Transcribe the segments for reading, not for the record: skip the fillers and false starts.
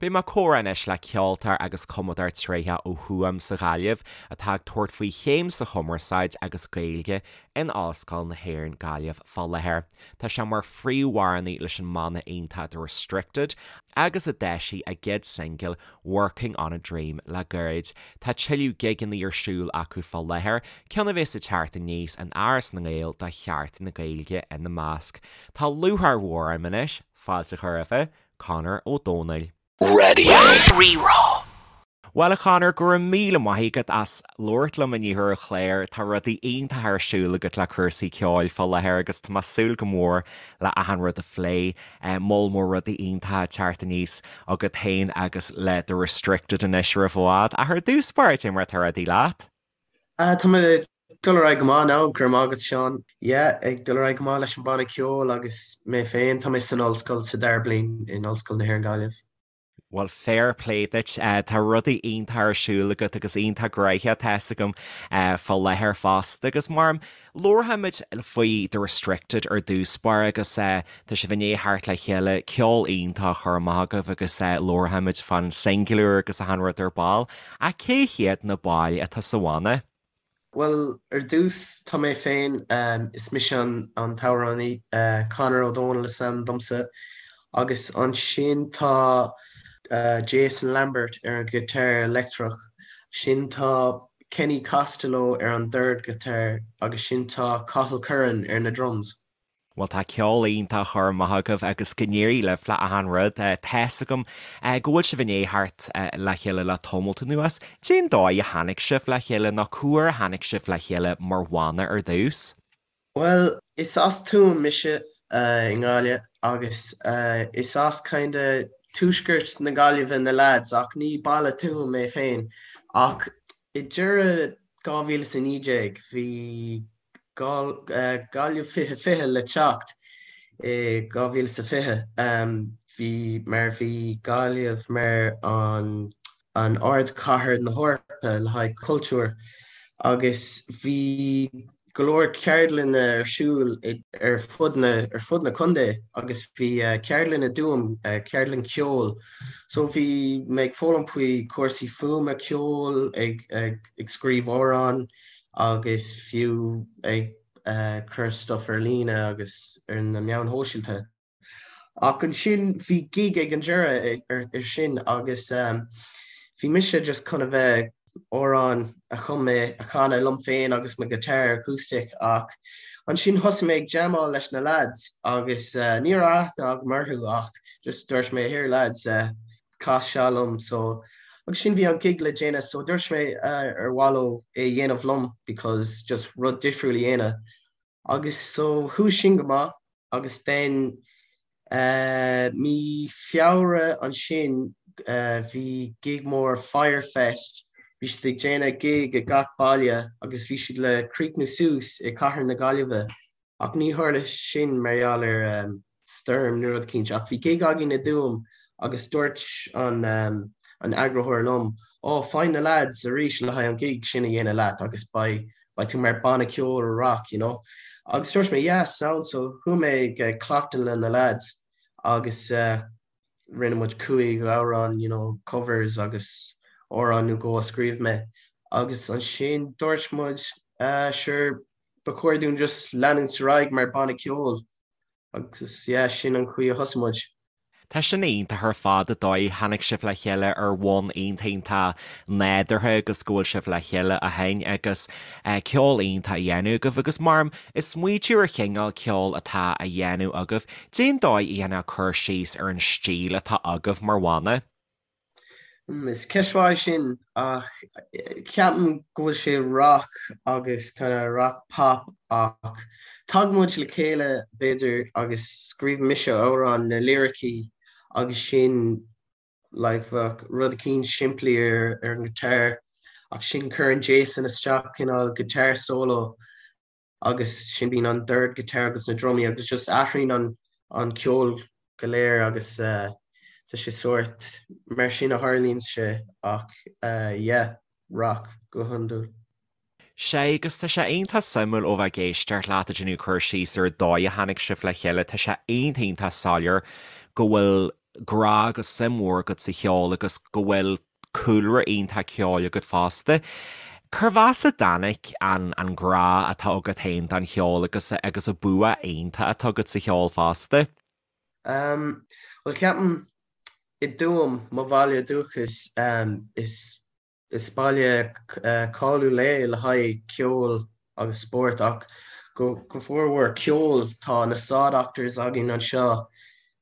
Beidh mé ag comhrá anois le ceoltóir agus cumadóir tréitheach ó Thuaim sa Ghaillimh atá ag tabhairt faoi chéim sa Chumarsáid agus Gaeilge in Ollscoil na hÉireann Gaillimh fá láthair. Tá sé mar phríomhamhránaí leis an mbanna iontach The Restricted agus a d'eisigh a gcéad singil Working on a Dream le gairid. Tá tuilleadh gigeanna ar siúl acu fá láthair, ceann a bheas ag teacht aníos in Áras na nGael do Sheachtain na Gaeilge ina measc. Tá lúcháir mhór orm anois fáilte a chur roimhe, Conor Ó Dónaill. Radio Rí-Rá. Bhuel a Chonor, go raibh míle maith agat as labhairt liom inniu ar an chlár. Tá rudaí iontacha ar siúl agat le cúrsaí ceoil fá láthair agus tá mé ag súil go mór le achan rud a phlé. Moll mór rudaí iontacha ag teacht aníos agat féin agus le The Restricted anois roimh i bhfad. Ach ar dtús báire, cad é mar atá rudaí leat? Tá mé Dul ar aghaidh go maith now, go raibh maith agat Seán. Yeah, ag dul ar aghaidh go maith leis an banna ceoil agus mé féin, tá mé san ollscoil sa dara bliain in Ollscoil na hÉireann Gaillimh. Bhuel, fair play duit. Tá rudaí iontach ar siúl agat agus iontach gnoitheach tá fhios agam fá láthair fosta. Agus mar labharfaimid faoi The Restricted ar dtús báire agus tá sibh i ndiaidh theacht le chéile, ceol iontach á chur amach agaibh agus labharfaimid fán singil úr agus achan rud ar ball. Ach cé hiad na baill atá sa bhanna? Bhuel, ar dtús, tá mé féin, is mise an t-amhránaí, Conor Ó Dónaill is ainm domsa, agus ansin tá Jason Lambert ar an ghiotár leictreach, sin tá Kenny Costello ar an dordghiotár agus sin tá Cathal Curran ar na drums. Bhuel tá ceol iontach á chur amach agaibh agus go n-éirí libh le achan rud. Tá's agam go bhfuil sibh i ndiaidh theacht le chéile le tamalt anuas. Cén dóigh a tháinig sibh le chéile nó cá huair a tháinig sibh le chéile mar bhanna ar dtús? Bhuel, is as Tuaim mise i nGaillimh agus is as kinda tuaisceart na Gaillimhe na lads ach ní baile Tuaim é féin. Ach i deireadh 2019 bhí Gaillimh 2020 le teacht i 2020. Bhí mar bhí Gaillimh mar an an ardchathair na hEorpa le haghaidh cultúr agus bhí go leor ceardlanna ar siúl ar fud na ar fud na contae agus bhí ceardlann i dTuaim, ceardlann ceoil. So bhí mé ag foghlaim faoi cúrsaí fuaime, ceoil, ag ag scríobh amhrán agus fiú ag cur stuff ar líne agus ar na meáin shóisialta. Ach ansin bhí gig ag an deireadh ar sin agus bhí mise just chun a bheith amhrán a chum mé a chanadh liom féin agus mo guitar acoustic ach ansin thosaigh mé ag jamáil leis na lads agus ní raibh aithne agam orthu ach just dúirt mé here lads cas seo liom so agus sin bhí an gig le déanamh so dúirt mé ar mhaith leo é a dhéanamh liom because just rud difriúil a dhéanamh agus so chuaigh sin go maith agus then mí Feabhra ansin bhí gig mór Fyrefest bhí siad ag déanamh gig i gach baile agus bhí siad le críochnú suas i cathair na Gaillimhe Ach ní tharla sin mar gheall ar stoirm nó rud eicínt. Ach bhí gig againn i dTuaim agus dúirt an an eagraitheoir liom, Ó, faigh na lads arís le haghaidh an gig sin a dhéanamh leat agus beidh beidh tú mar banna ceoil rock, you know. Agus dúirt mé, yeah, sound so chuaigh mé ag cleachtadh le na lads agus rinne muid cúig amhrán, you know, covers agus amhrán nó dhó a scríobh mé. Agus ansin dúirt muid, ah, sure, ba chóir dúinn just leanúint ar aghaidh mar banna ceoil agus yeah, sin an chaoi a thosaigh muid. Tá sin iontach ar fad an dóigh a tháinig sibh le chéile ar bhonn iontach iontach nádúrtha agus go bhfuil sibh le chéile ó shin agus ceol iontach á dhéanamh agaibh agus mar ag smaoitiú ar chineál ceoil atá á dhéanamh agaibh, cén dóigh a dhéanfá cur síos ar an stíl atá agaibh mar bhanna? Is ceist mhaith í sin ach ceapaim go bhfuil sé rock agus kind of rock pop ach tagann muid le chéile b'fhéidir agus scríobhann mise amhrán na liricí agus sin like bheadh rud eicínt simplí ar ar an guitar ach sin cuireann Jason isteach cineál guitar solo agus sin bíonn an dord guitar agus na drumaí agus just athraíonn an an ceol go léir agus tá sé sórt mar sin a tharlaíonn sé ach yeah rock go hiondúil. Sea, agus tá sé iontach suimiúil ó bheith ag éisteacht leat ag déanamh cur síos ar an dóigh a tháinig sibh le chéile, tá sé iontach iontach soiléir go bhfuil. grá agus suim mhór agat sa cheol agus go bhfuil cúlra iontach ceoil agat fosta. Cérbh as a dtáinig an an grá atá agat féin don cheol agus agus an bua iontach atá agat sa cheol fosta? Um, bhuel ceapaim i dTuaim, mo bhaile dúchais, um, is Is baile cáiliúil é le haghaidh ceoil agus spóirt ach go formhór ceol. Tá na Saw Doctors againn anseo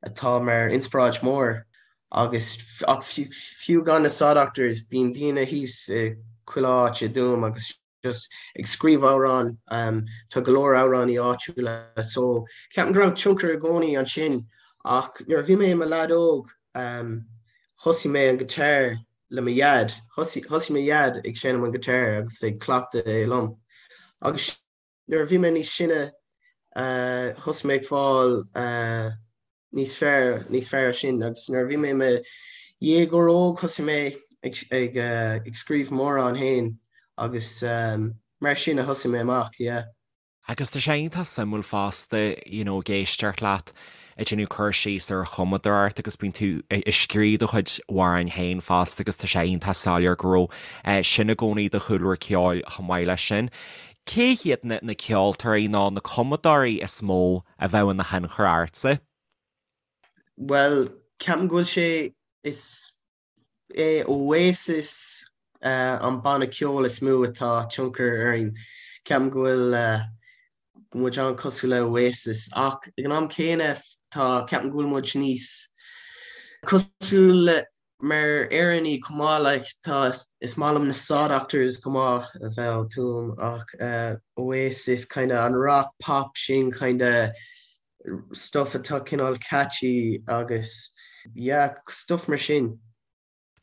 atá mar inspioráid mór agus ach fiú gan na Saw Doctors bíonn daoine thíos i chuile áit i dTuaim agus just ag scríobh amhrán. Tá go leor amhránaí áitiúla so ceapaim go raibh tionchar i gcónaí ansin ach nuair a bhí mé i mo leaid óg thosaigh mé an guitar le mo dhaid. Thosaigh mo dhaid ag seinm an guitar agus ag cleachtadh é liom. Agus nuair a bhí mé níos sine, thosaigh mé ag fáil níos fearr, níos fearr sin. Agus nuair a bhí mé i mo dhéagóir óg, thosaigh mé ag ag scríobh m'amhrán féin agus mar sin a thosaigh mé amach, yeah. Agus tá sé iontach suimiúil fosta, you know, ag éisteacht leat ag déanamh cur síos ar an chumadóireacht agus bíonn tú ag scríobh do chuid amhráin féin fosta agus tá sé iontach soiléir go raibh sin i gcónaí i do chúlra ceoil chomh maith leis sin. Cé hiad na na ceoltóirí nó na cumadóirí is mó a bheadh ina thionchar ortsa? Bhuel, ceapaim go bhfuil sé, is é Oasis an banna ceoil is mó atá tionchar orainn. Ceapaim go bhfuil muid an-cosúil le Oasis ach ag an am céanna tá ceapaim go bhfuil muid níos cosúil le mar Éireannaigh chomh maith like tá is maith liom na Saw Doctors chomh maith a bheith ó Tuaim ach Oasis kind of an rock pop sin kind of stuff atá cineál catchy agus yeah, stuff mar sin.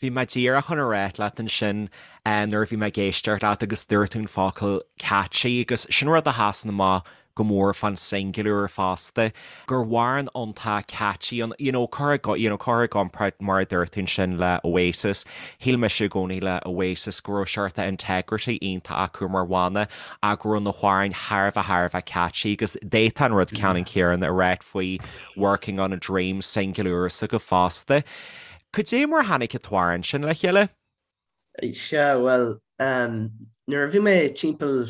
Bhí mé díreach chun a ráit leat ansin nuair a bhí mé ag éisteacht leat agus dúirt tú an focal catchy agus sin rud a sheasann amach go mór fán singil úr fosta, gur amhrán iontach catchy an, you know, cur i, you know, cur i gcomparáid mar a dúirt tú ansin le Oasis, shíl mise i gcónaí le Oasis go raibh seort integrity iontach acu mar bhanna ach go raibh na hamhráin thar a bheith thar a bheith catchy agus d'fhéadfá an rud ceannann céanna a ráit faoi Working on a Dream, singil úr s'agaibh fosta. Cad é mar a tháinig an t-amhrán sin le chéile? Sea, bhuel, nuair a bhí mé timpeall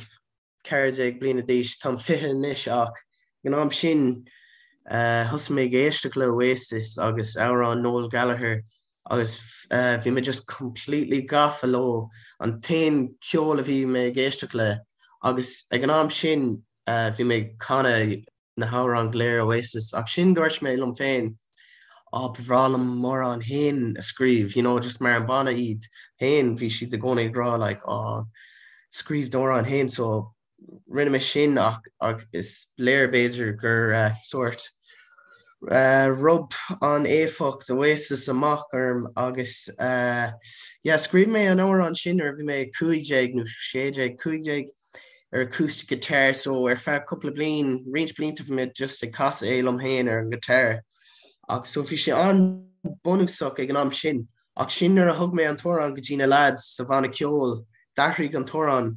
14 bliana d'aois, táim 20 anois ach ag an am sin thosaigh mé ag éisteacht le Oasis agus amhráin Noel Gallagher agus bhí mé just completely gafa leo, an t-aon ceol a bhí mé ag éisteacht le agus ag an am sin bhí mé ag canadh na hamhráin go léir Oasis ach sin dúirt mé liom féin á ba bhreá liom m'amhrán féin a scríobh you know just mar an banna iad féin bhí siad i gcónaí ag rá like á scríobh d'amhrán féin so rinne mé sin ach ach is léir b'fhéidir gur uh, sort uh, rub an éifeacht Oasis amach orm agus uh, yeah, scríobh mé an amhrán sin nuair a bhí mé 15 nó 16 15 ar acoustic guitar so ar feadh cúpla bliain, roinnt blianta bhí mé just ag casadh é liom féin ar an guitar ach so bhí sé an-bunúsach ag an am sin ach sin nuair a thug mé an t-amhrán go dtí na lads sa bhanna ceoil d'athraigh an t-amhrán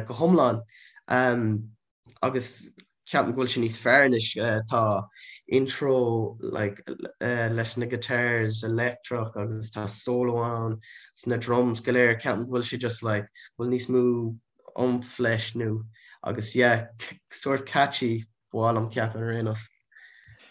go hiomlán. Agus ceapaim go bhfuil sé níos fearr anois. Tá intro like leis na guitars electric agus tá solo ann sna drums go léir. Ceapaim go bhfuil sé just like bhfuil níos mó oomph leis nó agus yeah sort catchy ba mhaith liom ceapadh ar aon nós.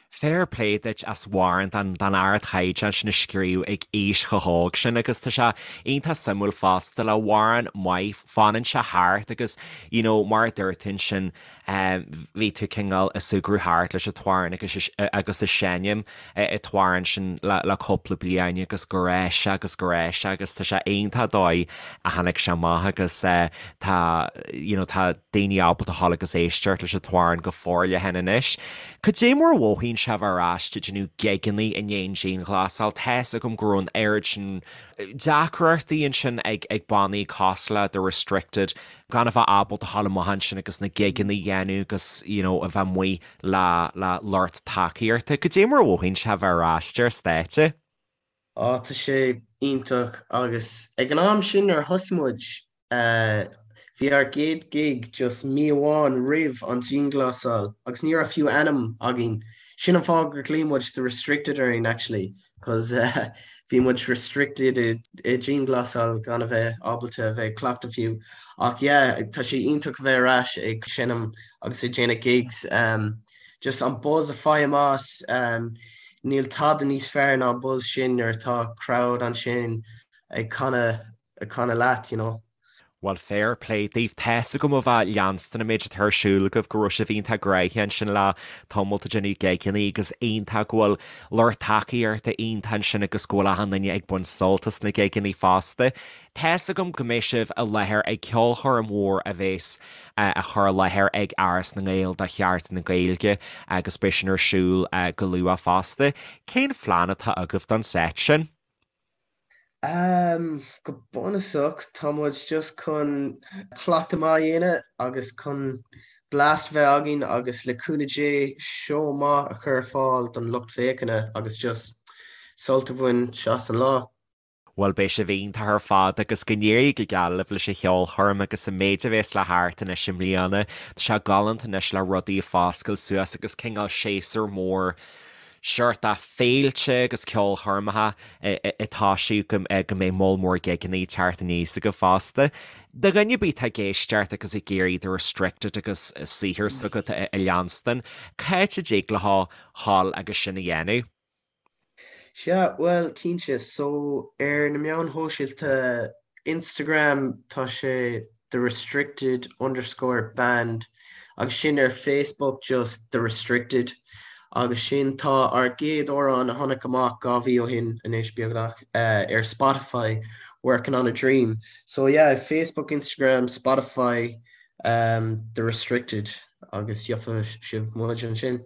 Fair play duit as amhrán den ardchaighdeán sin a scríobh ag aois chomh hóg sin agus tá sé iontach suimiúil fosta le amhrán maith fanann sé thart agus you know mar a dúirt tú ansin bhí tú cineál ag súgradh thart leis an t-amhrán agus agus ag seinm an t-amhrán sin le le cúpla bliain agus go raibh sé agus go raibh sé agus tá sé iontach dóigh a tháinig sé amach agus tá you know tá daoine ábalta a ghabháil agus éisteacht leis an t-amhrán go forleathan anois. Cad é mar a mhothaíonn sé a bheith ar ais ag déanamh gigeanna i ndiaidh an dianghlasáil? Tá's agam go raibh an oiread sin deacrachtaí ansin ag ag bannaí cosúil le The Restricted gan a bheith ábalta a ghabháil amach ansin agus na gigeanna a dhéanamh agus you know a bheith amuigh le le lucht tacaíochta. Cad é mar a mhothaíonn sé a bheith ar ais ar stáitse? Á tá sé iontach agus ag an am sin nuair a thosaigh muid Bhí ár gcéad gig just mí amháin roimh an dianghlasáil agus ní raibh fiú ainm againn. Sin an fáth gur ghlaoigh muid The Restricted orainn actually. Cos bhí muid restricted i dianghlasáil gan a bheith ábalta a bheith ag cleachtadh fiú. Ach yeah, tá sé iontach a bheith ar ais ag seinm agus ag déanamh gigs. Just an buzz a fhaighim as, níl tada níos fearr ná an buzz sin nuair atá crowd ansin ag canadh ag canadh leat, you know. Bhuel, fair play daoibh. Tá's agam ó bheith ag leanstan an méid atá ar siúl agaibh go raibh sibh iontach gnoitheach ansin le tamall ag déanamh gigeanna agus iontach go bhfuil lucht tacaíochta iontach ansin agus go bhfuil achan duine ag baint sult as na gigeanna fosta. Tá's agam go mbeidh sibh i láthair ag ceolchoirm mhór a bheas á chur i láthair ag Áras na nGael do Sheachtain na Gaeilge agus beidh sin ar siúl go luath fosta. Cén phlean atá agaibh don seit sin? Umm, go bunúsach, tá muid just chun cleachtadh maith a dhéanamh agus chun blast bheith againn agus le cúnamh Dé seó maith a chur ar fáil don lucht féachana agus just sult a bhaint as an lá. Bhuel beidh sibh iontach ar fad agus go n-éirí go geal libh leis an cheolchoirm agus an méid a bhéas le theacht anois i mbliana. Tá sé galánta anois le rudaí ag foscailt suas agus cineál séasúr mór seort de féilte agus ceolchoirmeacha ag toisiú go mbeidh moll mór gigeanna ag teacht aníos agaibh fosta. Do dhuine ar bith atá ag éisteacht agus ag iarraidh The Restricted agus saothar s'agat a leanstan, cá háit a dtig leo dhul agus sin a dhéanamh? Sea, bhuel, cinnte. So, ar na meáin shóisialta, Instagram, tá sé The Restricted underscore Band agus sin ar Facebook just The Restricted agus sin tá ár gcéad amhrán a tháinig amach 2 mhí ó shin anois beagnach ar Spotify, Working on a Dream. So yeah, Facebook, Instagram, Spotify, um, The Restricted agus gheobhaidh sibh muid ansin.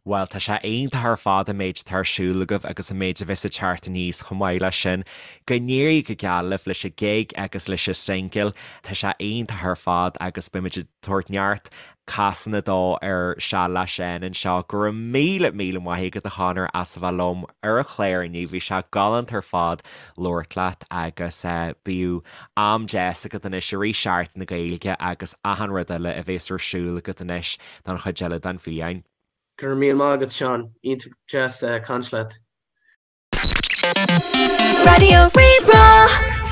Bhuel, tá sé iontach ar fad an méid atá ar siúl agaibh agus an méid a bheas ag teacht aníos chomh maith leis sin. Go n-éirí go geal libh leis an gig agus leis an singil. Tá sé iontach ar fad agus beimid ag tabhairt neart casanna dó ar Seal le Seán anseo. Go raibh míle míle maith agat a Chonor as a bheith liom ar an chlár inniu. Bhí sé galánta ar fad labhairt leat agus bíodh am deas agat anois i rith Seachtain na Gaeilge agus achan rud eile a bheas ar siúl agat anois don chuid eile den bhliain. Go raibh míle maith agat Seán, iontach deas caint leat. Raidió Rí-Rá.